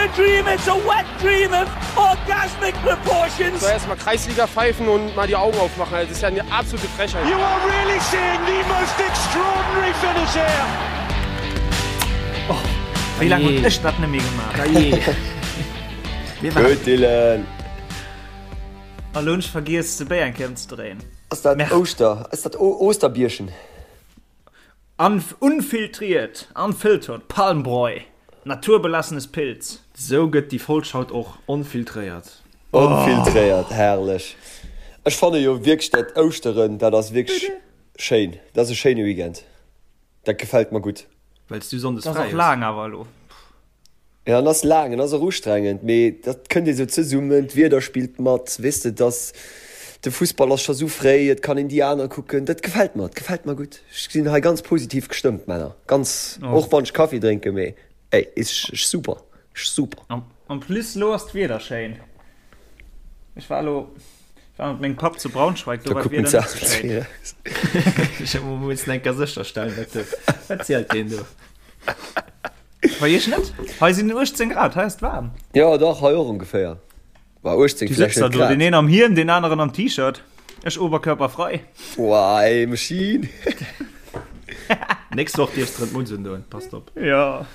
a dream, it's a wet dream of orgasmic proportions. So erstmal Kreisliga pfeifen und mal die Augen aufmachen. Das ist ja eine absolute Frechheit. You are really seeing the most extraordinary finish here. Oh, wéi laang hunn ech dat net méi gemaach? Gutt, Dylan. A lo hunn ech vergiess de Béi eng Kéier ëmzedréien. Ass dat Ouschter? Ass dat Osterbierchen? Unfiltriert, unfiltered, Palmbräu, naturbelassenes Pils. Sou gëtt déi Folg haut och onfiltréiert. Onfiltréiert, herrlech. Ech fanne jo wierklech dat Ouschteren, dat ass wierklech schéin. Dat ass e schéine Weekend. Dat gefält mer gutt. Well s du sonndes fräi hues. Dat ass och laang awer elo. Ja, en ass laang, en ass och ustrengend, mee dat kënnt ee sou zesummen, d'Wieder spillt mat, weess de, dass de Fussball ass scho sou fréi, et kann een déi aner kucken, dat gefält mer, et gefält mer gutt. Ech sinn hei ganz positiv gestëmmt, Männer, ganz, och wann ech Kaffi drénken, mee ey, is super, super. En plus lo ass d'Wieder schéin. Ech war elo, ech war mat mengem Papp zu Braunschweig, do Da war kucken d'Wieder se net sou schéin. Ech muss eng Kéier sécherstellen, wat de, wat zielt deen do? Bei iech net? Hei sinn 18 Grad, hei ass et waarm. Jo dach, hei och ongeféier. Bah 18 Du vläicht sëtzt da net do, deen grad. een am Hiem, deen aneren am T-Shirt, ech oberkörperfrei. Boah ey, Maschine. Nächst Woch dierfs de rëm d'Mutz undoen, passt op. Jo.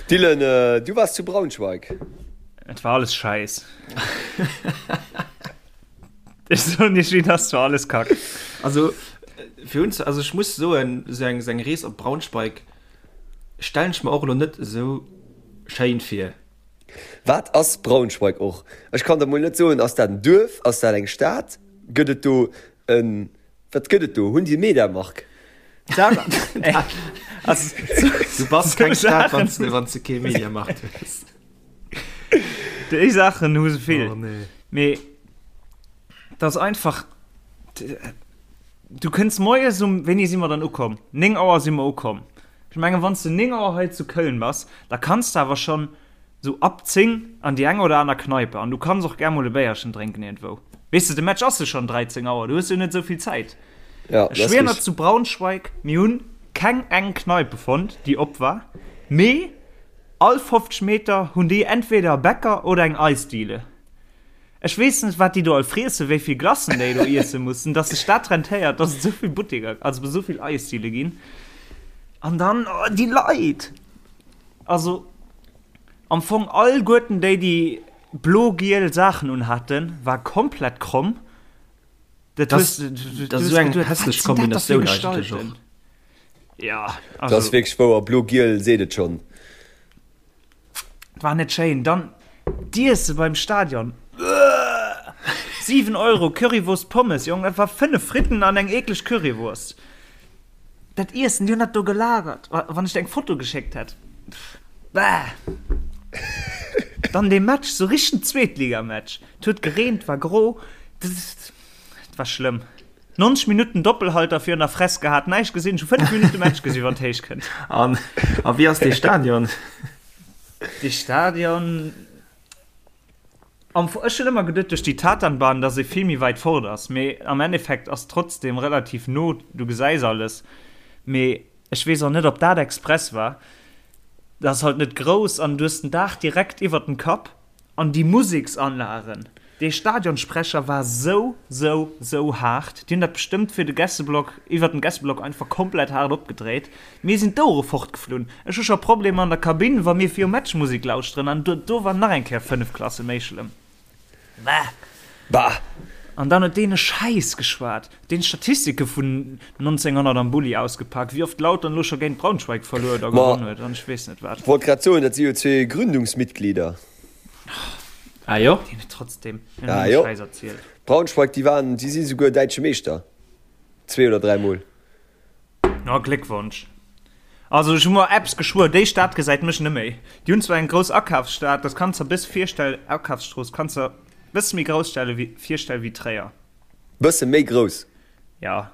Dylan, du waars zu Braunschweig. Et war alles scheiss. Ech soen iech wéi et ass, et war alles kack. Also fir uns, also ech muss soen, esou eng, esou eng Rees op Braunschweig stellen ech mer och elo net esou schéin vir. Wat ass Braunschweig och? Ech kann der mol net soen, ass dat en Duerf, ass dat eng Stad, gëtt et do en, wat gëtt et do? Hunn déi e Mediamarkt? Du bass keng Stad, wann s de, wann s de kee Mediamarkt hues. Déi Saachen hu se vill. Oh nee. Mee dat ass einfach, du kënns moies um, wéini si mer dann ukomm? 9 Auer si mer ukomm. Ech mengen, wann s de 9 Auer hei zu Köln bass, da kanns de awer schonn sou ab 10 an déi eng oder aner Kneipe an du kanns och gär mol e Béierchen drénken iergendwou. Weess de, de Match ass jo schonn 13 Auer, du hues jo net esou vill Zäit. Ja, Ech schwier nach zu Braunschweig, mir hunn keng eng Kneipe fonnt, déi op war, mee all 50 Meter hunn déi entweder e Bäcker oder eng Eisdiele. Ech weess net, wat déi do all friessen, wéi vill Glacen déi do iesse mussen, dass sech dat rentéiert, dass et esou vill Butteker, also esou vill Eisdiele ginn. An dann, oh, déi Leit! Also am Fong alleguerten déi, déi blo-giel Saachen unhaten, war komplett kromm. Dat ass esou eng hässlech Kombinatioun eigentlech och. Ja, also. Dat ass wierklech wouer, blo-giel seet et schonn. War net schéin. Dann d'Iesse beim Stadion. Uah! 7 Euro Currywurst Pommes, Jong, dat war 5 Fritten an eng eekleg Currywurst. Dat Iessen, déi hunn dat do gelagert. Wann ech der eng Foto geschéckt hätt. Bäh! Dann dee Match, sou richtegen Zweetligamatch. Et huet gereent, war gro. Et war schlëmm. 90 Minutten Doppelhalter virun der Fress gehat, näischt gesinn. Ech hu 5 Minutte Match gesinn, wann et héich kënnt. An a wéi ass dee Stadion? Dee Stadion. Am Fong, ech hunn ëmmer geduet duerch déi Tatanbahn, dass ee vill méi wäit fort ass, mee am Endeffekt ass trotzdem relativ no, du gesäis alles, mee ech weess och net ob dat express war. Dat ass halt net grouss an du hues den Daach direkt iwwert dem Kapp an déi Museksanlagen, dee Stadionsprecher war sou, sou, sou haart, déi hunn dat bestëmmt fir de Gästeblock, iwwert dem Gästeblock einfach komplett haart opgedréit. Mir sinn d'Ouere fortgeflunn. Ech hu scho Problemer an der Kabinn, wa mir virum Match Musek lauschteren, an do war nach eng Kéier 5 Klasse méi schlëmm. Bah! Bah! An dann huet deen e Schäiss geschwat, deen Statistike vun 1900 am Bulli ausgepak, wéi oft Lautern elo scho géint Braunschweig verluer oder Ma, gewonn huet an ech weess net wat. wollt grad soen, dat si jo zwee Gründungsmitglieder. Ah jo? Deen huet trotzdem en Ah jo. Schäiss erzielt. Braunschweig, déi waren, déi si souguer däitsche Meeschter. Zwee oder dräimol. Oh, Gléckwonsch. Also ech hu mer eppes geschwuer, déi Stad gesäit mech neméi. Déi hunn zwar eng grouss Akafsstad, dat kanns der bësse virstellen, Akafsstrooss kanns der bësse méi grouss stelle wéi virstelle wéi Tréier. Bësse méi grouss? Ja.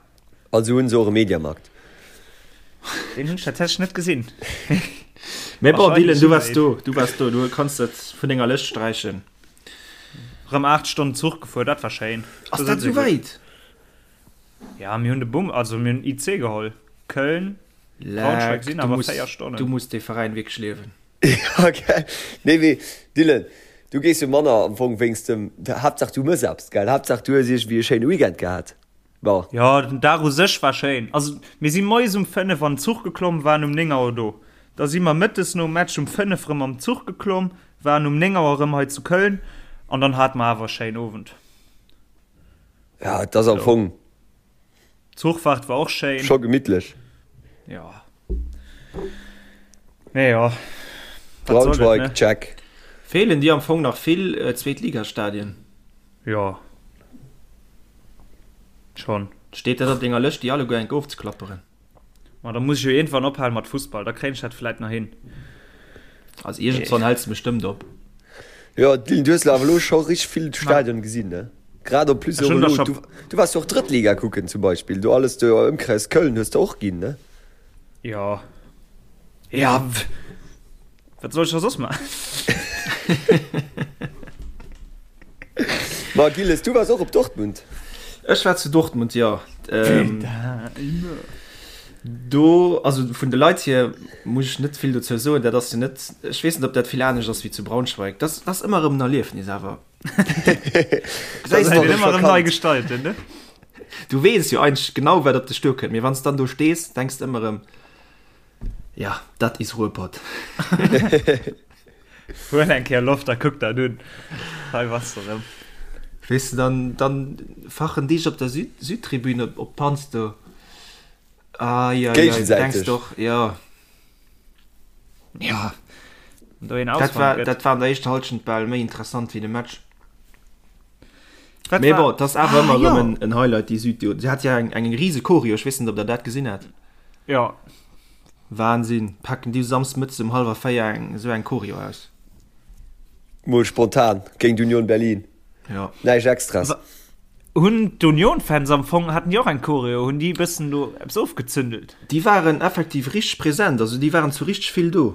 Also hunn se och e Mediamarkt? Deen hunn ech tatsächlech net gesinn. Mee bon, Dylan, du waars do, du waars do, du kanns dat vun denger Lëscht sträichen. Rëm 8 Stonnen Zuch gefuer, dat war schéin. Ass dat esou wäit? Ja, mir hunn de Bum, also mir hunn IC geholl. Köln, Braunschweig Leck, sinn du awer muss, 4 Stonnen. du muss dee Veräin wierklech liewen. Ja, gell. Nee, mee Dylan, du gees jo manner am Fong wéinst dem, Haaptsaach du mëss eppes, gell? Haaptsaach du hues iergendwéi e schéine Weekend gehat. Bon. Jo, den Dag u sech war schéin. Also mir si moies um 5 an den Zuch geklomm, waren um 9 Auer do. Da si mer mëttes nom Match um 5 rëm am Zuch geklomm, waren um 9 Auer rëm hei zu Köln an dann hate mer awer e schéinen Owend. Ja, et ass am Fong. D'Zuchfahrt war och schéin. Scho gemittlech. Jo. Mee jo. Braunschweig, check. Feelen dir am Fong nach vill Zweetligastadien? Jo. Schon. Steet dat op denger Lëscht déi alleguer enk ofzeklapperen? Ma da muss ech jo iergendwann ophalen mat Fussball, da kréien ech dat vläit nach hin. Also iergendswann häls de bestëmmt op. Jo Dylan, du hues awer elo scho richteg vill Stadionen gesinn, ne? Grad en plus och elo, du, du waars jo och Drëttliga kucken zum Beispill, do alles do Ëmkreis Köln hues de och ginn, ne? Jo. Ja, wat soll ech da soss maachen? Ma Gilles, du waars och op Dortmund? Ech war zu Dortmund, jo. Do, also vun de Leit hier muss ech net vill dozou soen. Dat ass jo net, ech weess net, ob dat vill anescht ass wéi zu Braunschweig. Dat ass ëmmer erëm en Erliefnis awer. Dat ass ëmmer erëm nei gestalten, ne? Du weess jo eigentlech genau, wat op dech duerkënnt, mee wann s dann do stees, denks de ëmmer erëm, Ja, dat is Ruhrpott. Huel eng Kéier Loft a kuck dat un. Hei bass de rëm. Weess de, dann, dann fachen déi op der Süd, Südtribün op, op d'Panz do. Ai, ai, ai, du denkst Géigesäiteg. doch, ja. Ja. Wann do een Dat war, Ausfall gëtt. dat war an der éischter Halschent bal méi interessant wéi de Match. Wat Mee war. bon, 't ass awer Ah, ëmmer jo. erëm en, en Highlight, déi Süd, déi hat ja eng, eng rise Choreo, ech weess net, ob der dat gesinn hat. Ja. Wahnsinn, packen déi Samsdes mëttes um halwer 4 eng esou eng Choreo aus. Mol spontan géint Union Berlin. Jo. Näischt Extras. Hunn d'Union-Fans am Fong, haten déi och eng Choreo? Hunn déi e bëssen do eppes ofgezündelt? Déi waren effektiv richteg present, also déi waren zu richteg vill do.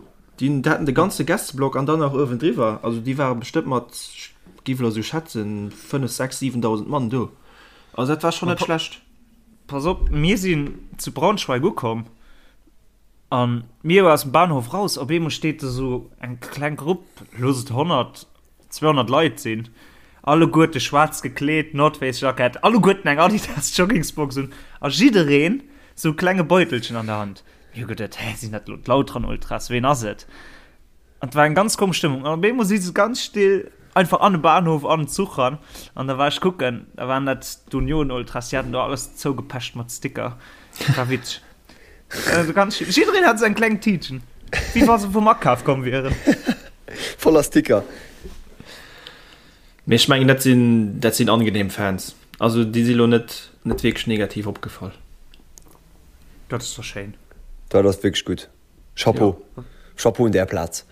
Déi haten de ganze Gästeblock an dann nach uewendriwwer. Also déi ware bestëmmt mat, ech géif elo esou schätzen, 5, 6, 7.000 Mann do. Also dat war schonn net schlecht. Pass op, mir sinn zu Braunschweig ukomm an mir aus dem Bahnhof raus, op eemol steet do sou eng kleng Grupp, looss et 100, 200 Leit sinn, alleguerte schwaarz gekleet, North Face Jackett, alleguerten eng Adidas Joggingsbox un a jiddereen sou e klenge Beutelchen an der Hand. Mir hu geduet, hä, sinn dat elo d'Lautern Ultras, ween ass et? An et war eng ganz komesch Stëmmung. An op eemol si se ganz still einfach an de Bahnhof, an den Zuch ran. An da war ech kucken, da waren dat d'Union-Ultras, déi haten do alles zougepecht mat Sticker. Dat war witzeg. Also ganz still. Jiddereen hat esou eng kleng Tiitchen, wéi wa se vum Akaf komm wieren. Voller Sticker. Mee ech mengen, dat sinn, dat sinn angenehm Fans. Also déi si lo net, net wierklech negativ opgefall. Dat ass doch schéin. Dat ass wierklech gutt. Chapeau. Ja. Chapeau un där Plaz.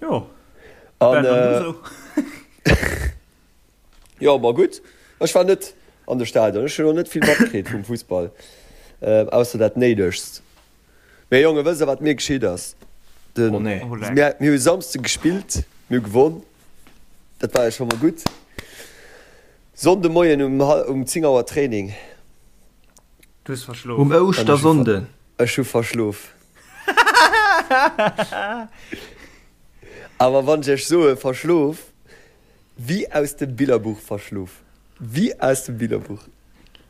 Jo. An, äh, jo, ma gutt. Ech war net an de Stadion. Ech hunn och net vill matkritt vum Fussball, äh, ausser dat Néidegst. Mee Jonge, wësst der, wat mir geschitt ass? Den, Oh nee. Oh, leck. mir, mir hu Samsde gespillt, mir hu gewonn. Dat war jo scho mol gutt. Sonnde Moien um, um 10 Auer Training. Du hues verschlof. Um Ouschtersonnden. Ech hu verschlof. Awer wann ech iech soe verschlof, wéi aus dem Billerbuch verschlof. Wéi aus dem Billerbuch.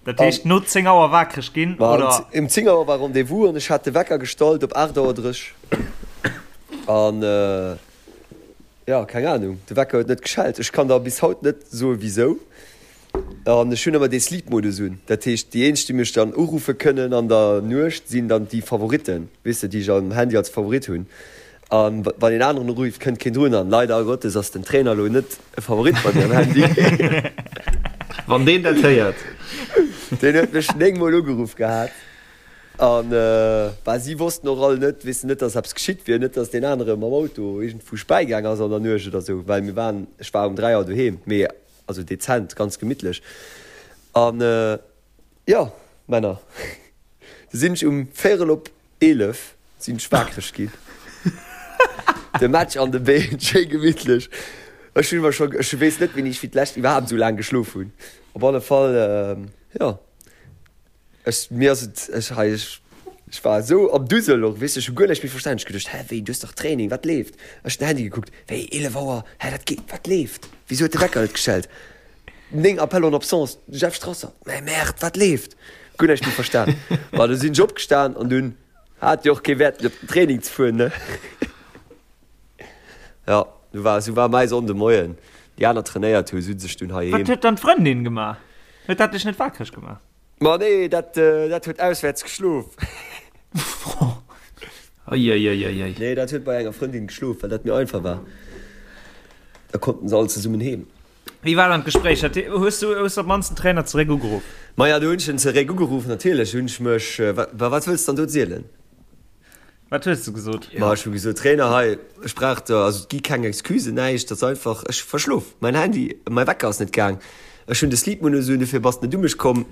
Dat heescht no 10 Auer wakereg ginn, oder? Um 10 Auer war Rendez-vous an ech hat de Wecker gestallt op 8 Auer 30. An jo, keng Ahnung, de Wecker huet net geschellt. Ech kann der bis haut net soe wisou. An ech hunn ëmmer dee Sleep-Modus un. Dat heescht, déi eenzeg, déi mech dann uruffe kënnen an der Nuecht, sinn dann déi Favoritten, weess de, déi ech am Handy als Favorit hunn. A wann een aneren urifft, kënnt keen drun. An leider Gottes ass den Trainer elo net e Favorit bei mir am Handy. Wann deen dat héiert. Deen huet mech 9 Mol ugeruff gehat. An bah, si wossten och all net, weess de, net, dass eppes geschitt wier, net, dass deen anere mam Auto iergendwou späi gaang ass an der Nuecht oder esou, well mir waren, ech war um 3 Auer doheem. Mee Also dezent, ganz gemittlech. An jo, Männer, du sinn ech um véierel op 11 sinn ech waakreg ginn. De Match an de Been, schéi gemittlech. Ech hunn mer scho, ech weess net wéini ech fir d'lescht iwwerhaapt esou laang geschlof hunn. Op alle Fall, jo, ech, mir ass et, ech hei, ech. Ech war esou am Dusel och, weess de, ech hu guer näischt méi verstan. Ech geduecht, hä, wéi, du hues dach Training, wat leeft? Ech den Handy gekuckt, wéi, 11 Auer, hä, dat geet, wat leeft? Wisou huet de Wecker net geschellt? 9 Appels en absence, de Jeff Strasser, mä merde, wat leeft? Guer näischt méi verstan. Ma du sinn ech opgestan an dunn hat jo och kee Wäert méi op den Training ze fueren, ne? Jo, du war, esou war mäi Sonnde Moien. Déi aner trainéiert hu, sinn sech dunn heiheem. Wat huet dann d'Frëndin gemaach? Huet dat dech net wakereg gemaach? Ma nee, dat, dat huet auswäerts geschlof. Eieieiei. Nee, dat huet bei enger Frëndin geschlof, well dat méi einfach war. Da konnten se all zesummen heem. Wéi war dann d'Gespréich? Hat, hues du, hues du op d'mannst den Trainer zeréck ugeruff? Maja, do hunn ech en zeréck ugeruff, natierlech hunn ech mech, wa, wat wëlls de dann do zielen? Wat hues de gesot? Ma ech hu gesot, Trainer, hei, ech brauch der, also et gi keng Excusen, näischt, et ass einfach, ech hu verschlof, mäin Handy, mäi Wecker ass net gaang, ech hunn de Sleep-Modus un, dofir bass de net u mech komm.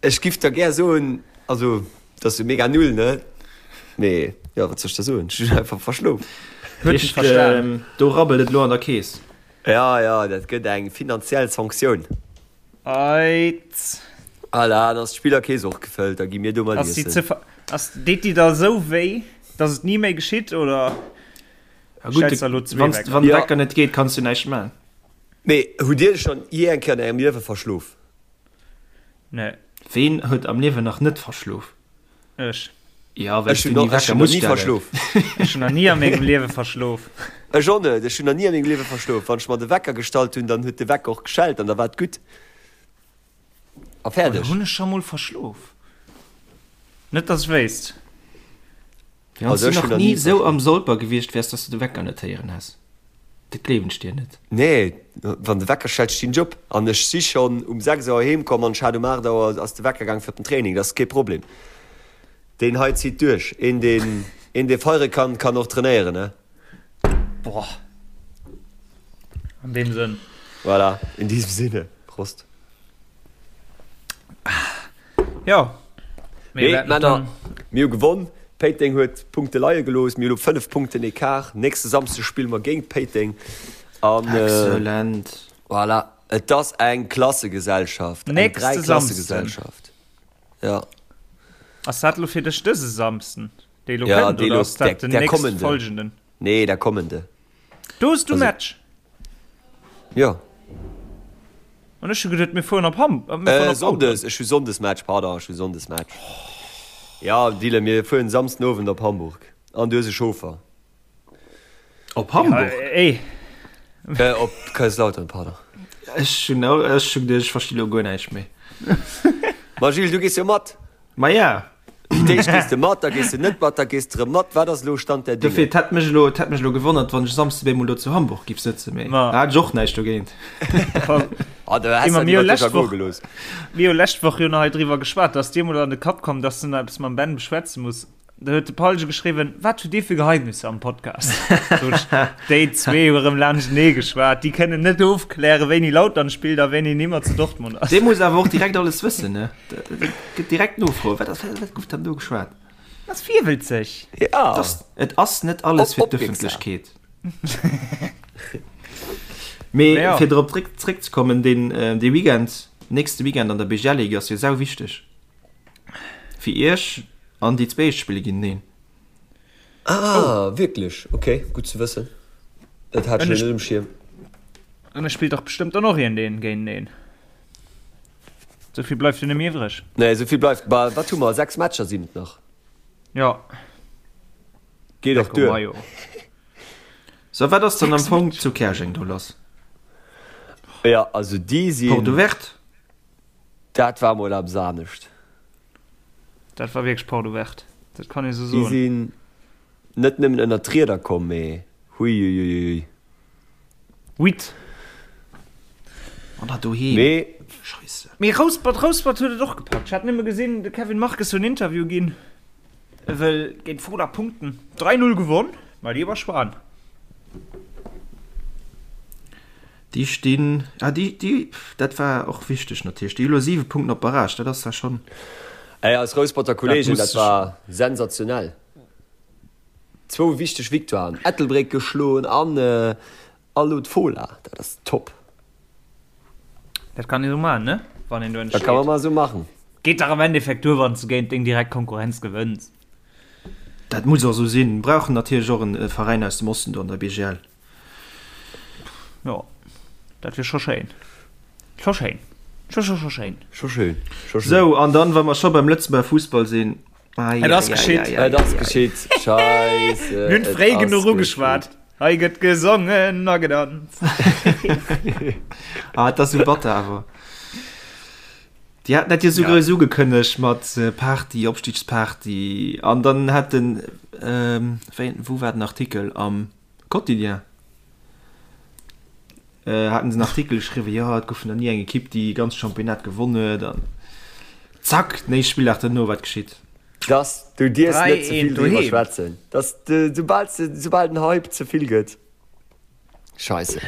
Ech giff der gär soen, also et ass jo mega null, ne, mee jo, wat soll ech der soen, ech hunn einfach verschlof. Huet dech verstan. Do rabbelt et elo an der Keess. Ja, ja, dat gëtt eng finanziell Sanktioun. Eit. Voilà, dann ass d'Spillerkeess och gefëllt, da gi mir do mat Ass déi iessen. ze ver ass deet déi da sou wéi, dass et ni méi geschitt, oder Ja gutt, stells der elo zwee wann Wecker? wann de Ja. Wecker net geet, kanns du näischt man. Mee hutt Dir schonn jee eng Kéier an Ärem Liewe verschlof? Nee. Ween huet am Liewen nach net verschlof? Ech. Ja, well Ech du hunn ni nach, ech Wecker hunn nach muss ni stellen. verschlof. Ech hunn nach ni a mengem Liewe verschlof. Ech och net, ech hunn nach ni a mengem Liewe verschlof. Wann ech mer de Wecker gestallt hunn, dann huet de Wecker och geschellt an da war et gutt a Oder fäerdeg. hunn ech scho mol verschlof? Net dass ech wéisst. Wann Also du ech nach hunn nach ni ni sou verschlof. am Solper gewiescht wäers, dass du de Wecker net héieren häss, dat gleewen ech dir net. Nee, wann de Wecker schellt, stinn ech op. An ech si schonn um 6 Auer heem komm an ech hat um 8 Auer ass de Wecker gaang fir op den Training. Dat ass kee Problem. Deen hei zitt duerch. Een deen, een dee feiere kann, kann och trainéieren, ne? Boah. An deem Sënn. Voilà, in diesem Sinne, Prost. Jo. Mee Männer, mir hu gewonn. Péiteng huet Punkte leie gelooss. Mir hu elo 5 Punkten Ecart. Nächste Samsdeg spille mer géint Péiteng. An Excellent. voilà, et ass eng Klassegesellschaft, eng Nächste Samsden. Dräiklassegesellschaft. Ja. Ass dat elo fir dech dëse Samsden, dee elo Ja, kënnt, dee oder elo, ass dat der, den der nächst kommende. folgenden? Nee, der kommende. Do hues du Also, Match? ja. An ech hu geduet, mir fueren op Ham, äh, mir fueren Äh, op Lautern. Sonndes, ech hu Sonndesmatch, pardon, ech hu Sonndesmatch. Ja, Dylan, mir fueren Samsden Owend op Hamburg. An du hues e Chauffer. Op Ja, Hamburg? ey. Äh, op Kaiserslautern, pardon. Ech hunn au, ech hunn geduecht, ech versti lo guer näischt méi. Ma Gilles, du gees jo mat. Ma ja. Fir d'éischt gees de mat, da gees de net mat, da gees de erëm mat. Wat ass elo Stand der Dofir, Dinge? et hätt mech elo, et hätt mech elo gewonnert, wann ech Samsde bemol do zu Hamburg giff sëtzen, mee Ma. da hat ech och näischt dogéint. Ah, da häss Immer dat mir hu iwwer dech lescht ergoe Woch, gelooss. mir hu lescht Woch jo nach hei driwwer geschwat, dass dir mol an de Kapp komm, dass du nach eppes mam Ben beschwätze muss. Da huet de Paulge geschriwwen, Wat hutt Dir fir Geheimnisser am Podcast? Sot ech, Déi zwee hu erëm laanschtenee geschwat, déi kënnen net ofklären, wéini Lautern spillt a wéini nimmer zu Dortmund ass. Dee muss awer och direkt alles wëssen, ne? Dat gëtt direkt Nofroen, Wat ass, wat gouf dann do geschwat? Ass virwëlzeg. Ja. Et ass net alles fir d'Ëffentlechkeet. Mee Ja. fir drop zréck, zréckzekommen, deen, dee Weekend, nächste Weekend an der BGL-Ligue ass jo sau wichteg. Fir iech an déi zwee éischt spille géinteneen. Ah, wierklech? Ok, gutt ze wëssen. Dat hat ech elo net um Schierm. An e spillt dach bestëmmt dann och iergendeen géinteneen. Esou vill bleift jo net méi iwwreg. Nee, esou vill bleift. Bah, wat hu mer? 6 Matcher sinn et nach. Jo. Geet och duer. Majo. So, wat ass dann am Fong zu Käerjeng do lass? Ja, also déi sinn. Porte ouverte? Dat war mol eppes anescht. Dat war wierklech Porte ouverte, dat kann ee sou Déi soen. sinn net nëmmen ënnert d'Rieder komm, mee huiuiuiui. Huit. An dat doheem. Mee. Scheisse. Mee Rouspert, Rouspert huet et och gepackt. Ech hat nëmme gesinn, de Kevin Marques huet en Interview ginn, e wëll géint Fola punkten. 3, 0 gewonn, ma déi war schwan. Déi stinn, ah déi, déi, dat war och wichteg natierlech, déi hu lo 7 Punkten op Barrage, dat ass da schonn. Ey, eis Rousperter Kollegen, Dat dat war sensationell. Zwou wichteg Victoiren, Ettelbréck geschloen an elo d'Fola, dat ass top. Dat kann een esou maachen, ne? Wann een do Dat kann man entsteet. mol esou maachen. Geet dach am Endeffekt duer, wann s du géint deng direkt Konkurrenz gewënns. Dat muss och esou sinn. Mir brauchen natierlech och en Veräin aus dem Osten do an der BGL. Jo, dat wier scho schéin. Scho schéin. Scho, scho, scho schéin. Scho schéin. Scho schéin. Sou, an dann, wa mer scho beim Lëtzebuerger Fussball sinn, Ai, Et ass geschitt. ai, ai, Et ass geschitt. Scheisse. Mir hunn fréi genuch ugeschwat. Hei gëtt gesongen a gedanzt. Ah, et ass sou batter awer. Déi haten dat jo sou grouss ugekënnegt mat Party, Opstigsparty an dann hat den, wéi, wou war den Artikel, am Quotidien haten se en Artikel geschriwwen, jo et gouf nach ni eng Ekipp déi e ganzt Championnat gewonn huet an zack, den éischte Spilldag duerno, wat geschitt? Dass du dierfs net ze vill driwwer schwätzen, dass de soubal soubal den Hype ze vill gëtt, scheisse.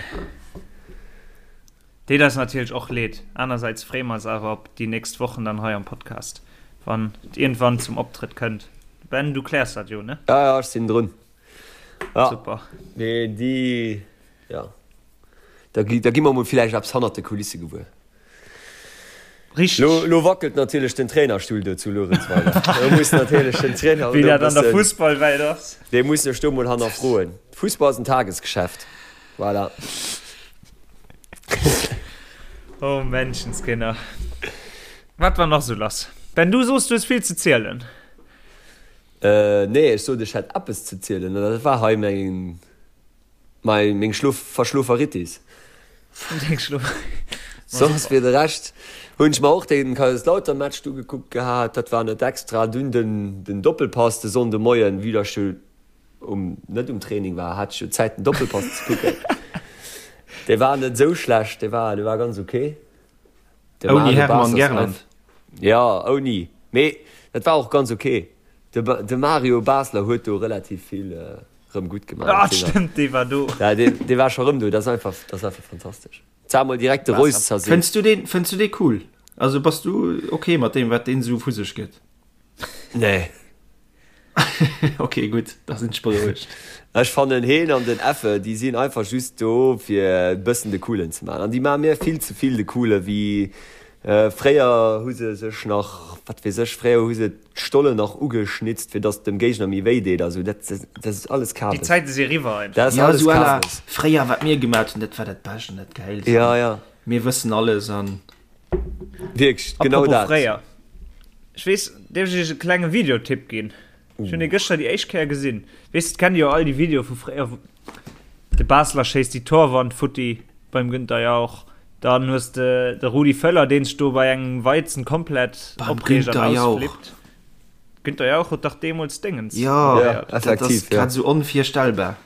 Deet eis natierlech och leed. Anersäits freeë mer eis awer op déi nächst Wochen dann hei am Podcast, wann et iergendwann zum Optrëtt kënnt. Ben, du kläers dat jo, ne? Ja, ja, ech sinn drun. Ja. Super. Mee déi, ja, da gi, da gi mer mol villäicht eppes hannert de Kulisse gewuer. Richteg. Lo, lo wackelt natierlech den Trainerstull do zu Luerenzweiler. Do muss natierlech den Trainer Wéi dat an der Fussballwelt ass. Dee muss sech do mol hannerfroen. Fussball ass en Tagesgeschäft. Voilà. Oh Menschenskinner. Wat war nach sou lass? Ben, du soos, du hues vill ze zielen. Äh, nee, ech sot, ech hätt eppes ze zielen. An dat war hei meng, mei, meng Schlof, Verschloferitis. Deng Schlof. Soss fir de Rescht hunn ech mer och den Kaiserslautern-Match ugekuckt gehat. Dat war net extra. Dunn den, den Doppelpass de Sonndemoien, vue dass ech jo um net um Training war, hat ech jo Zäit den Doppelpass ze kucken. Dee war net esou schlecht, dee war, dee war ganz ok. De Ouni Mario Hermann Basler ass Gerland. einfach, ja ouni, mee dat war och ganz ok. De, de Mario Basler huet do relativ vill rëm gutt gemaach. Ah stëmmt, dee war do. Ja, dee, dee war scho rëm do, dat ass einfach, dat ass einfach fantastesch. Zwar mol direkt de Reus zerseet. Fënns du deen, fënns du dee cool? Also bass du ok mat deem wat deen esou vu sech gëtt? Nee. Ok gutt, da sinn ech berouegt. Ech fannen heen an den Effe déi sinn einfach just do fir e bëssen de Coolen ze maachen an déi maache mir vill ze vill de Coole wéi fréier hu se sech nach wat weess ech fréier hu se d'Stollen nach ugeschnitzt fir datt dem Géigner méi wéi deet a sou dat dat ass alles Déi Kabes. Zäite si eriwwer einfach. Dat ass Ja alles esou à la Kabes. fréier wat mir gemat hunn dat war dat Bescht an dat Gäilst Ja an ja. mir wëssen alles an. Wierklech, genau Apropos dat. fréier. Ech weess, dierf ech iech e klenge Videotipp ginn? Ech hunn dee gëschter déi éischt Kéier gesinn. Weess, kennt dir jo all déi Videoe vu fréier, wou de Basler schéisst déi Torwand futti beim Günther Jauch. Dann hues de de Rudi Völler, deen sech do bei engem Weizen komplett Beim opreegt an Günther Jauch. ausflippt. Günther Jauch huet dach deemools Déngens Jo, Ja, moderéiert. dat ass effektiv, ja. grad esou onvirstellbar.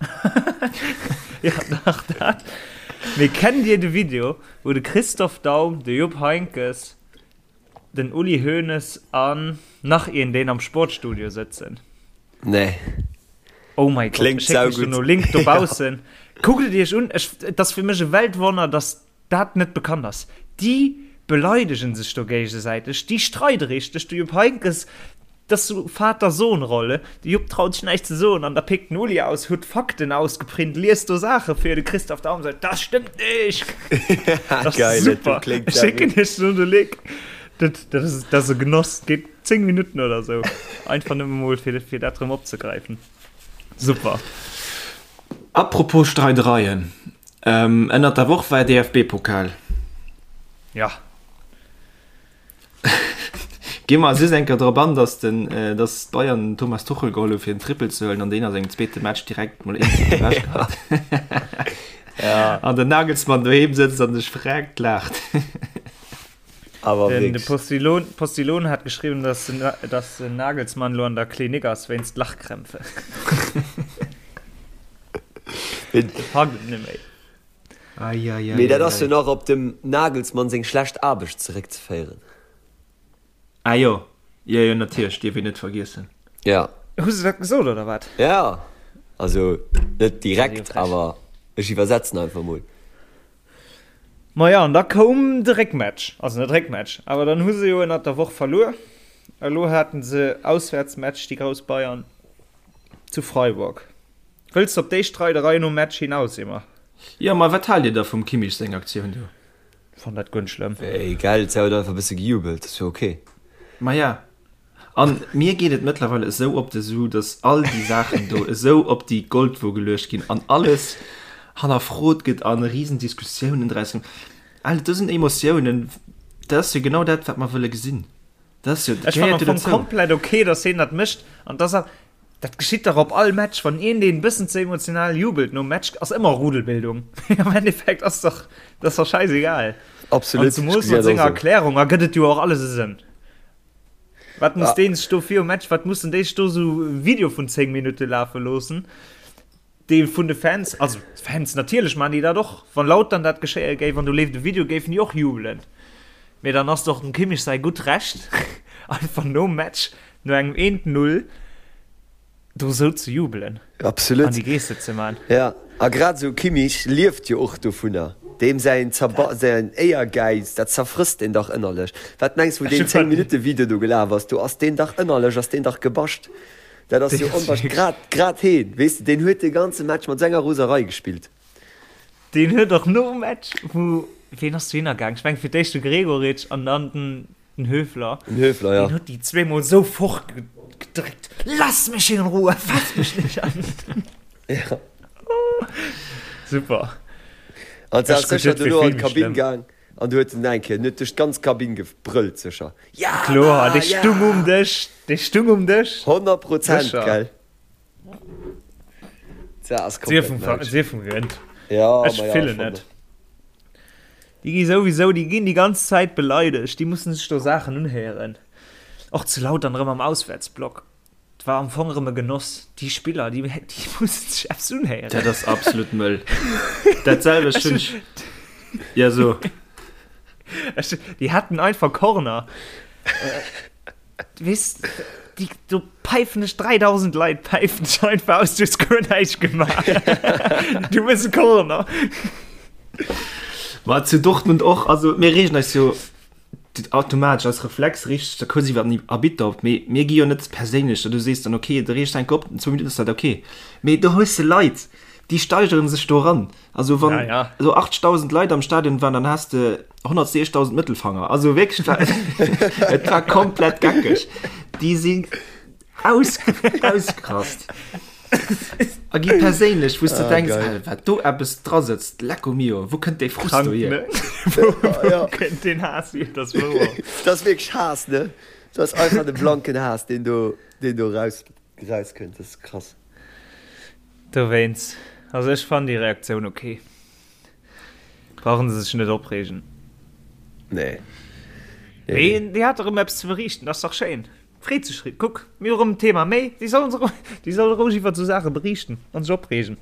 Ja, dach dat. Mee kennt dir de Video, wou de Christoph Daum, de Jupp Heynckes, den Uli Hoeneß an nach een deen am Sportstudio sëtzen? Nee. Oh my God, Kléngt ech schécken iech saugutt. dono Link dobaussen. Kuckt et iech un, ech, et ass fir mech e Weltwonner, dass dat net bekannt ass. Déi beleidegen sech do géigesäiteg, déi streide richteg. De Jupp Heynckes, dat ass sou Vater-Sohn-Rolle, de Jupp traut sech näischt ze soen an da péckt den Uli aus, huet Fakten ausgeprint, liest do Saache vir, de Christoph Daum seet, dat stëmmt nicht! Dat ass Geil, dat super. kléngt Ech schécken saugutt. iech do de Link. Dat, dat ass, dat ass e Genoss, geet 10 Minutten oder sou. Einfach nëmme mol fir, fir dat rëm opzegräifen. Super. Apropos Streidereien, Ënnert der Woch war DFB-Pokal. Ja. Gi mer just eng Kéier drop an, dass den, dass d'Bayern den Thomas Tuchel geholl hu fir den Triple ze huelen an deen a sengem zweete Match direkt mol een Titel ewech gehat. Ja. An den Nagelsmann doheem sëtzt an sech verreckt laacht. Awer Den, de wierklech. Postillon, Postillon hat geschriwwen, dass den, dass den Nagelsmann lo an der Klinik ass wéinst Lachkrämpfe. Mee, De packt et net méi. Ai, ai, ai, mee dat ai, ass jo ai. nach op dem Nagelsmann seng schlecht Aarbecht zeréckzeféieren. Ah jo, jo, jo, natierlech, dierf een net vergiessen. Ja. Hu se dat gesot oder wat? Ja, also net Dat ass jo direkt, frech. awer ech iwwersetzen einfach mol. Maja, an da koum de Réckmatch, also net Réckmatch, awer dann hu se jo ënnert der Woch verluer. Elo haten se Auswäertsmatch, déi grouss Bayern zu Freiburg. Wëlls de op déi Streiderei nom Match hinaus, Emma? Jo, ma wat haalt dir da vum Kimmich seng Aktioun do? Fannt dat guer net schlëmm. Wéi, gell, se huet einfach e bësse gejubelt, ass jo ok. Maja. An mir geet et mëttlerweile esou op de Su, dass all déi Saachen do esou op déi Goldwo geluecht ginn an alles hannerfrot gëtt an risen Diskussiounen draus ginn. Alter, do sinn Emotiounen, dat ass jo genau dat, wat mer wëlle gesinn. Dat ass jo, dat Ech fannen gehéiert am jo Fong dozou. komplett ok, dass hien dat mécht an dass er, dat geschitt dach op all Match, wann een deen bëssen ze emotional jubelt nom Match, ass ëmmer Rudelbildung. Am Endeffekt ass dach, dat ass dach scheißegal. Absolut, An zemoos mat senger Erklärung ergëtt et jo och alles e Sënn. Wat muss deen sech do virum Match, wat mussen déi sech do sou e Video vun 10 Minutte lafe loossen, dee vun de Fans, also d'Fans natierlech maachen déi dat och, wann Lautern dat geschéie géif an do leeft e Video, géifen déi och jubelen. Mee dann ass et och dem Kimmich säi gutt Recht, einfach nom Match, no engem eent Null, do sou ze jubelen Absolut. an déi Geste ze man. Ja, a grad esou Kimmich lieft jo och dovunner. Deem säin Zerba säin Éiergäiz, dat zerfrësst deen dach ënnerlech. Wat mengs wou deen 10 Minutte Video do gelaf ass, do ass deen dach ënnerlech ass deen dach gebascht. Dat ass jo onwahrsch grad grad heen, weess de, deen huet de ganze Match mat senger Roserei gespillt. Deen huet och nom Match, wou, ween ass dohinner gaang? Ech mengen fir d'éischt de Gregoritsch an dann den Den Höfler. Den Höfler, ja. Den huet déi zweemol sou fort gedréckt. Lass mech in Ruhe, fass mech nicht an. Ja. Super. An se ass sécher dono an d'Kabinn gaang an du huet en eng Kéier, en huet duerch d'ganz Kabinn gebrëllt sécher. Ja! Kloer, dee stung um Dësch, dee stung um Dësch. 100 Prozent, gell? Sief vum gewinnt. Ja, Ech fillen net. Déi gi souwisou, déi ginn déi ganz Zäit beleidegt, déi mussen sech do Saachen unhéieren. Och zu Lautern erëm am Auswäertsblock, et war am Fong erëm e Genoss. Déi Spiller, déi, déi mussen sech eppes unhéieren. Dat ass absolut mëll. Dat selwecht hunn ech, ja so. Ech, déi haten einfach Corner. Weess, déi, do päifen dech 3000 Leit päifen dech einfach aus, du hues guer näischt gemaach. Du hues e Corner. Ma zu Dortmund och, also mir reegen eis jo automatesch als Reflex richteg da kuerz iwwer den Arbitter op, mee mir gi jo net perséinlech, du sees dann okay, de reegst enk op, zwou Minutten ass dat okay. Mee do hues de Leit, déi steigeren sech do eran. Also wann ja, ja. so 80.000 Leit am Stadion waren, dann hast de 160.000 Mëttelfanger. Also wirklich, war, et war komplett geckeg. Die sind aus, ausgerast. A gi perséinlech, wou du ah, denkst, hey, wat do eppes dra sëtzt, lecco mio, wo kënnt dee Frust do hier? Wo, wo ja. kënnt den Haass hier? Das das wirklich Haass, ne? Das ist einfach de blanken Haass, den do, den do raus, rauskënnt. Das ist krass. Dowéinst, also ech fannen déi Reaktioun ok. Brauchen se sech net opreegen. Nee. Mee déi hat erëm eppes ze beriichten, ass dach schéin. Freet sech ri. Kuck, mir hu erëm en Thema méi. Déi sollen se, déi solle roueg iwwert esou Saache beriichten an sech opreegen.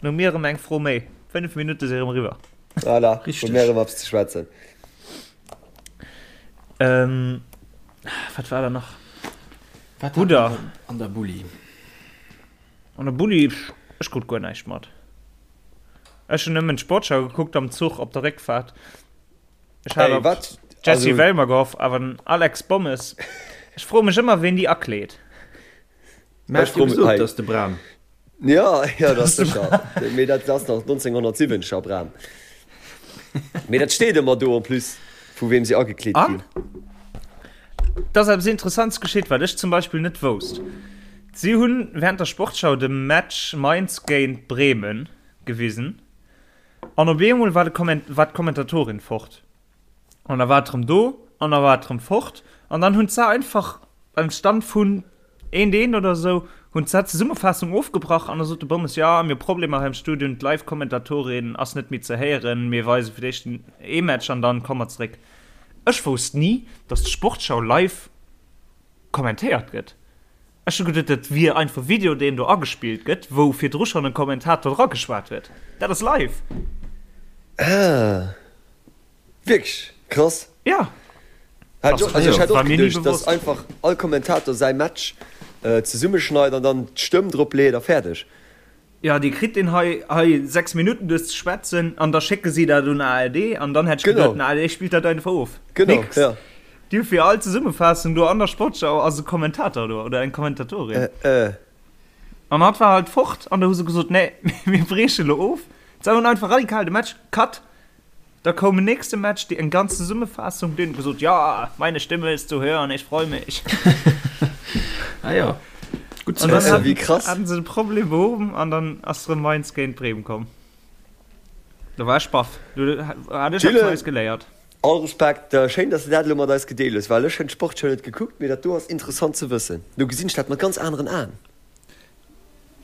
Dann hu mir erëm eng Fro méi. 5 Minutte si erëm eriwwer. Voilà, hu mir erëm eppes ze schwätzen. Ähm, wat war da nach? Wat Brudder. An der Bulli. An der Bulli, ech krut guer näischt mat. Ech hunn nëmmen d'Sportschau gekuckt am Zuch op der Réckfahrt. Ech hat op Jessy also... Wellmer gehofft, awer den Alex Bommes. Ech froe mech ëmmer, ween déi akleet. Mä ech froe mech, dat ass de Bram. Ja, ja, dat ass sécher. Mee dat ass nach 1970er Bram. Mee dat steet ëmmer do en plus, vu weem se agekleet ginn. Et ass eppes Interessants geschitt, wat ech zum Beispill net wousst. Si hunn während der Sportschau de Match Mainz géint Bremen gewisen an op eemol war war d'Kommentatorin fort an da war et erëm do an da war et erëm fort an dann hunn se einfach beim Stand vun eent eent oder esou hunn se d'Zesummefaassung ofgebrach an da sot de Bommes, jo mir hu Problemer hei am Studio, d'Live-Kommentatorin ass net méi ze héieren, mir weise fir d'éischt ee Match an dann komme mer zeréck. Ech wousst ni, dass d'Sportschau live kommentéiert gëtt. Ech hu geduet, dat wier einfach Video, deen do agespillt gëtt, wou virdru schonn en Kommentator dra geschwat huet. Dat ass live! Ah, wierklech? Krass. Ja. Hat ech och, also ech hat och geduecht, dass einfach all Kommentator säi Match zesummeschneit an dann d'Stëmm drop leet a fäerdeg. Jo, déi kritt deen hei hei 6 Minutten duer ze schwätzen an da schécke si dat un ARD an dann hätt ech geduet, den ARD spillt dat einfach of. Genau, Nix. ja. Déi hu fir all Zesummefaassung do an der Sportschau ass e Kommentator do oder eng Kommentatorin. Äh, äh. An hatt war halt fort an da hu se gesot, nee, mir brieche lo of. Se hunn einfach radikal de Match cut. Da koum en nächste Match, déi eng ganz Zesummefaassung, deen huet gesot, ja, meine Stimme ist zu hören, ich freu mich. Ah ja, gutt ze wëssen. Wéi krass. Haten se de Problem behuwen an dann ass rëm Mainz géint Bremen komm. Do war ech baff. Do hat ech eppes Neies geléiert. All Respekt, schéin dass de dat elo mat eis gedeelt hues, well ech hunn d'Sportshow net gekuckt, mee dat do ass interessant ze wëssen. Lo gesinn ech dat mat ganz aneren Aen.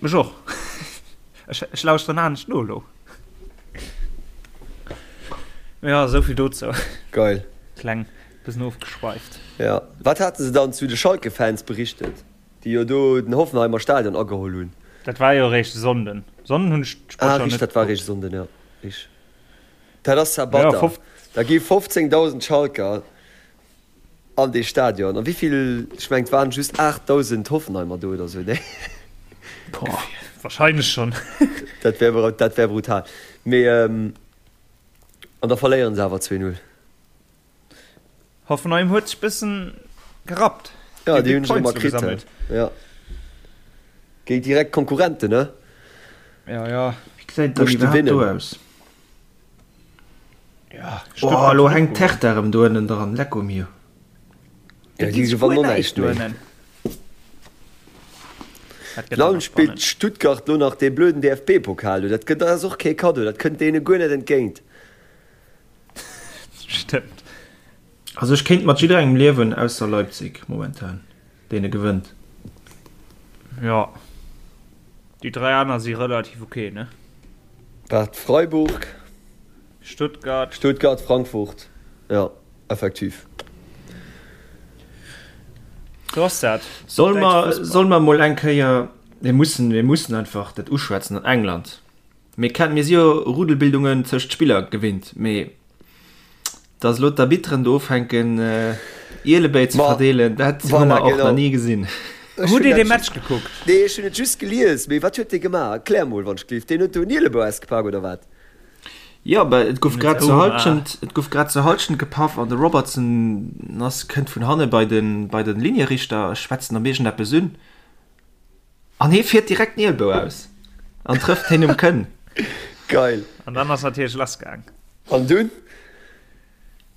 Mech och. Ech, ech lauschteren anescht no elo. Ja, esou vill dozou. Geil. Kleng bëssen ofgeschweift. Ja, wat hate se dann zu de Schalke-Fans berichtet, déi jo do den Hoffenheimer Stadion ageholl hunn? Dat war jo eréischt e Sonnden. Sonnden hunn ech d'Sportschau net. Ah, richteg, dat war eréischt e Sonnden, ja, richteg. Dat ass zwar batter. Da gi 15.000 Schalker an dee Stadion. A wéivill, ech mengen et waren just 8.000 Hoffenheimer do oder sou, nee? Boah, wahrscheinlech schonn. Dat wär, dat wär brutal. Mee, an da verléieren se awer 2, 0. Hoffenheim huet sech bëssen gerappt. Ja, déi hunn sech ëmmer kritt. Ja. Géint direkt Konkurrenten, ne? Ja, ja. Wéi gesäit dann iwwerhaapt do aus? Ja, oh, elo hänkt d'Hertha erëm do ënnen dran. Lecco mio. Ja, déi gewannen och näischt méi. Dann spillt Stuttgart lo nach dee blöden DFB-Pokal do. Dat gëtt, dat ass och kee Kaddo, dat kënnt deene guer net entgéint. Stëmmt. Also ech kéint mat jidderengem liewen ausser Leipzig momentan, deene gewënnt. Jo, déi 3 aner si relativ ok, ne? Wat, Freiburg? Stuttgart. Stuttgart, Frankfurt, jo, effektiv. Sou ass dat. Soll mer, soll mer mol eng Kéier, mir mussen, mir mussen einfach dat uschwätzen an England. Mir kennen, mir si jo Rudelbildungen tëscht Spiller gewinnt, mee dass elo d'Arbitteren do ufänken Ielebéi ze verdeelen, dat hu mer och nach ni gesinn. Hutt Dir dee Match gekuckt? Nee, ech hunn et just gelies. Mee wat huet dee gemaach? Erklär mol, wann ech gelift. Deen huet do en Ielebou ausgepak, oder wat? Jo, bah, et gouf grad zur Halschent, et gouf grad zur Halschent gepaff an de Robertson ass, kënnt vun hanne bei den, bei den Linierichter, schwätzt en op iergendeppes un. An hee fiert direkt den Ielbou aus an trëfft heen um Kënn. Geil. An dann ass natierlech lass gaang. An dunn?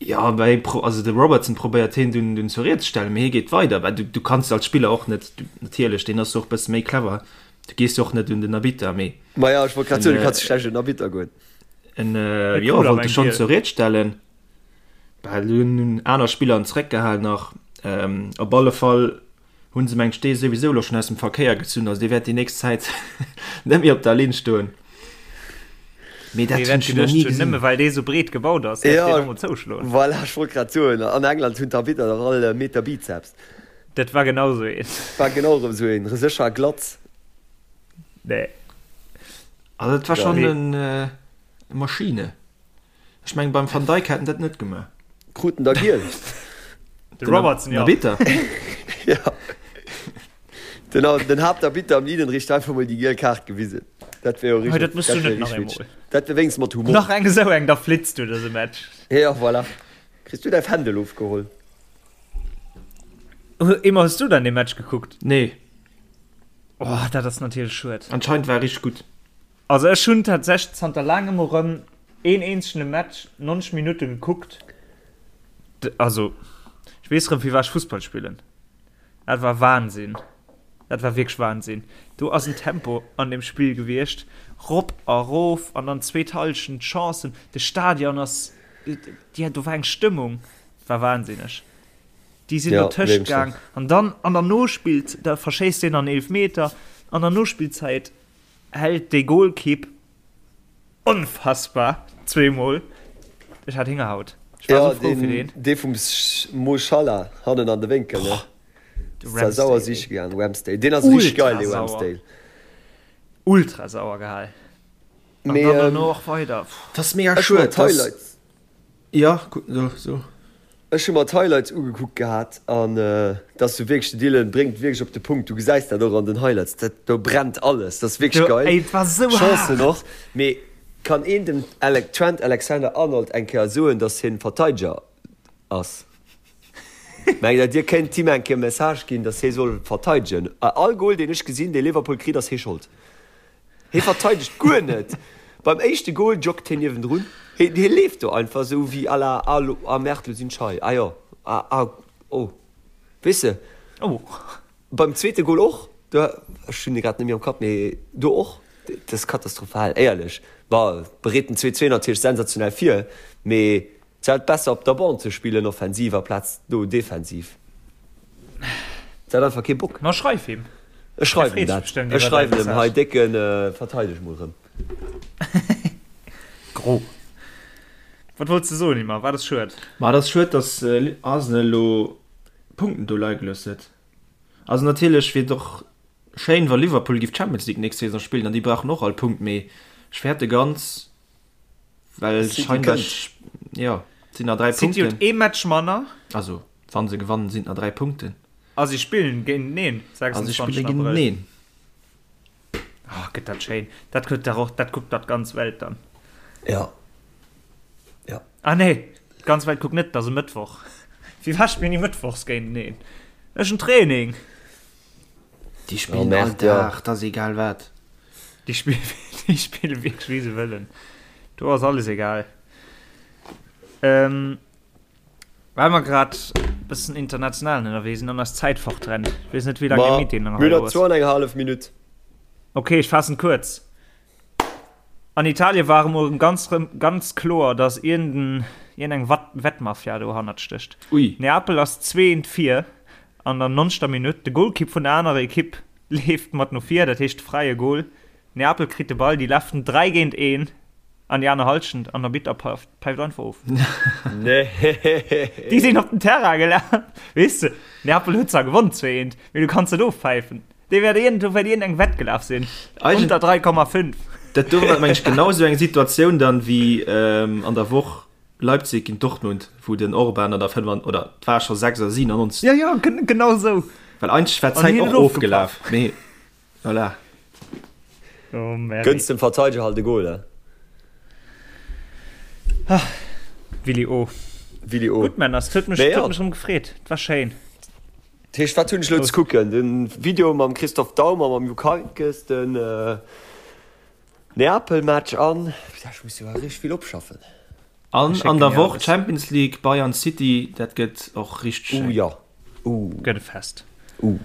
Jo, bah, hee pro, also de Robertson probéiert heen dunn, dunn zur Ried ze stellen, mee hee geet weider. Bah, du, du kanns als Spiller och net, du, natierlech, deen ass jo och bësse méi clever, du gees jo och net un den Arbitter, mee. Maja, ech wollt grad soen, du kanns schlecht un den Arbitter goen. En, jo, wollt e schonn zur Ried stellen. Bah, dunn hunn aner Spiller en zeréckgehal nach. Op alle Fall Hunn se mengt dee souwisou elo schon aus dem Verkéier gezunn, also dee wäert déi nächst Zäit net méi op der Linn stoen. Mee dat hunn ech nach ni gesinn. Nëmme well dee sou breet gebaut ass, däerf deen emol zouschloen. Voilà, ech wollt grad soen, an England hunn d'Arbitter dach all e Meter Bizeps. Dat war genau sou een. War genau erëm sou een, sécher a glatz. Nee. Also dat war schonn en Maschine. Ech mengen beim Van Dijk hätt en dat net gemaach. Krut en da giel? De Robertson, jo. Arbitter. Ja. Den, den Haaptarbitter am Linienrichter einfach mol déi giel Kaart gewisen. Dat wär jo richtig. Dat mëss du net nach eemol. Dat wär wéinstens mat Humor. Nach eng esou eng, da flitz du dëse Match. Ja, voilà. Kriss du däi Fändel ofgeholl. Emma, hues du dann dee Match gekuckt? Nee. Oh, dat ass natierlech schued. Anscheinend war e richteg gutt. Also ech hunn tatsächlech zanter laangem erëm een eenzegene Match 90 Minutte gekuckt. Also ech weess erëm firwat ech Fussball spillen. Dat war Wahnsinn. Dat war wierklech Wahnsinn. Do ass en Tempo an deem Spill gewiescht, rop a rof an dann zweet Hallschent Chancen. De Stadion ass, jo do war eng Stëmmung, war wahnsinneg. Déi sinn Ja, dotëscht gaang an dann an der Nospillzäit, da verschéisst deen an Eelefmeter an der Nospillzäit. Hält dee Golkipp onfassbar zweemol. Ech hat Héngerhaut. Ech war Ja, sou frou fir deen, deen. dee vum Mo Salah hannen an de Wénkel, ne? De Ass zwar sauer Ramsdale, siche ey. gaang, Ramsdale. Deen ass richteg Ultra geil, dee sauer. Ramsdale. Ultra sauer gehal. An Mee, dann ähm, dono och weider. Dat ass mega ech hu mer schued, dass. d'Highlights. Ja, gutt, so, so. Ech hu mer d'Highlights ugekuckt gehat an dat ass jo wierklech, de Dylan bréngt wierklech op de Punkt, du gesäis dat och an den Highlights, dat do brennt alles, dat ass wierklech geil, Ey, et war sou Chancen haart! och, mee kann een dem Trent Alexander-Arnold eng Kéier soen, dass hien Verteideger ass? Mengt der, dir kéint him eng Kéier e Message ginn, dass hie soll verteidegen? All Goal deen ech gesinn, dee Liverpool kritt, ass hie Schold. Hie verteidegt guer net, beim éischte Goal joggt hien niewendrun. Hie leeft do einfach esou wéi à la, ah lo, ah merde, lo sinn ech hei, ah jo, ah, ah, oh. Weess de? Oh. Beim zweete Gol och, do, ech hunn e grad net méi am Kapp, mee do och, dat ass katastrophal, éierlech. Bon, bereet den 2, 2 natierlech sensationell vir, mee et war halt besser op der Bande ze spillen offensiv aplaz do defensiv. Et hat einfach kee Bock. Ma schreif him. Ech schreiwen him dat. Ech schreiwen him, hei Décken, verteideg mol rëm. Gro. Wat wollts de soen, Ymer? Wat ass schued? Ma et ass schued, datt Arsenal elo Punkten do leie gelooss huet. Also natierlech wier et och schéin, wa Liverpool géif d'Champions League nächst Saison spillen an déi brauchen och all Punkt, mee ech fäerte ganz, well scheinbar, jo, et sinn nach 3 City huet Punkten. ee Match manner. Also wa se gewannen, sinn et nach 3 Punkten. A si spillen géinteneen, A si 26. spille Abrëll. géinteneen. Oh, gëtt dat schéin. Dat kuckt dach och, dat kuckt dach d'ganz Welt dann. Ja. Ja. Ah nee, d'ganz Welt kuckt net, dat ass e Mëttwoch. Firwat spillen déi mëttwochs géinteneen? Ech hunn Training. Déi spillen all Merde, ja. Dag, dat ass egal wat. Déi spillen, déi spillen wierklech wéi se wëllen. Do ass alles egal. Ähm, Well mer grad bëssen international ënnerwee sinn an eis Zäit fortrennt. Ech weess net, wéi laang de Meeting nach Mir elo hunn nach ass. zwou an eng hallef Minutt. Ok, ech faassen kuerz. An Italien war emol erëm ganz rëm ganz kloer, dass iergend eng Wettmafia dohannert stécht. Ui. Neapel ass zweent vir an der nonzegter Minutt. De Golkipp vun der anerer Ekipp leeft mat no vir, dat heescht fräie Gol. Neapel kritt de Ball, déi lafen 3 géint 1 an déi aner Halschent an der Arbitter päift einfach of. Nee. Déi sinn op den Terrain gelaf. Weess de, Neapel huet zwar gewonn 2-1, mee du kanns net ofpäifen. Dee wäert iergend, do wäert iergend eng Wett gelaf sinn. Eigent- Unter 3,5. Dat do war meng ech genau esou eng Situatioun dann wéi an der Woch Leipzig géint Dortmund, wou den Orban an der 5 oder et war scho 6 oder 97. Ja, ja, genau esou. Well eigentlech war An d'Zäit hien och huet ofgepaff. ofgelaf, mee voilà. Oh, Mary. Gënns dem Verteideger halt e Goal, he? Ah, Willi O. Willi O. Gutt, Männer, et huet mech, Mee huet ja. mech erëm gefreet. Et war schéin. Dat heescht, wat hunn ech elo ze kucken? Den Video mam Christoph Daum a mam Jupp Heynckes, den Neapel-Match an, putain, ech muss jo awer richteg vill opschaffen. An Ech an schécken der dir Woch alles. Champions League, Bayern City, dat gëtt och richteg Uh, schéin. jo. Uh. Gëtt e Fest. Uh.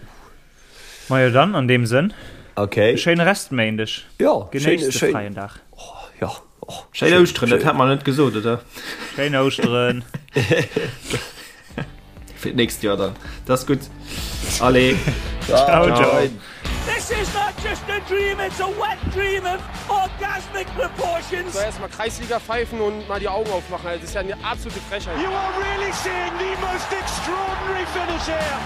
Majo dann, an deem Sënn, Okay. e schéine Restméindeg. Jo, schéin, Genéisst de schéin. fräien Dag. Oh, jo. Oh, Schéin Ouschteren, dat hat mer net gesot, oder? Schéin Ouschteren. Fir d'nächst Joer dann. Dat ass gutt. Allez. Ciao, ciao. This is not just a dream, it's a wet dream of orgasmic proportions. Soll erstmal Kreisliga pfeifen und mal die Augen aufmachen. Also, das ist ja eine absolute Frechheit. You are really seeing the most extraordinary finish here.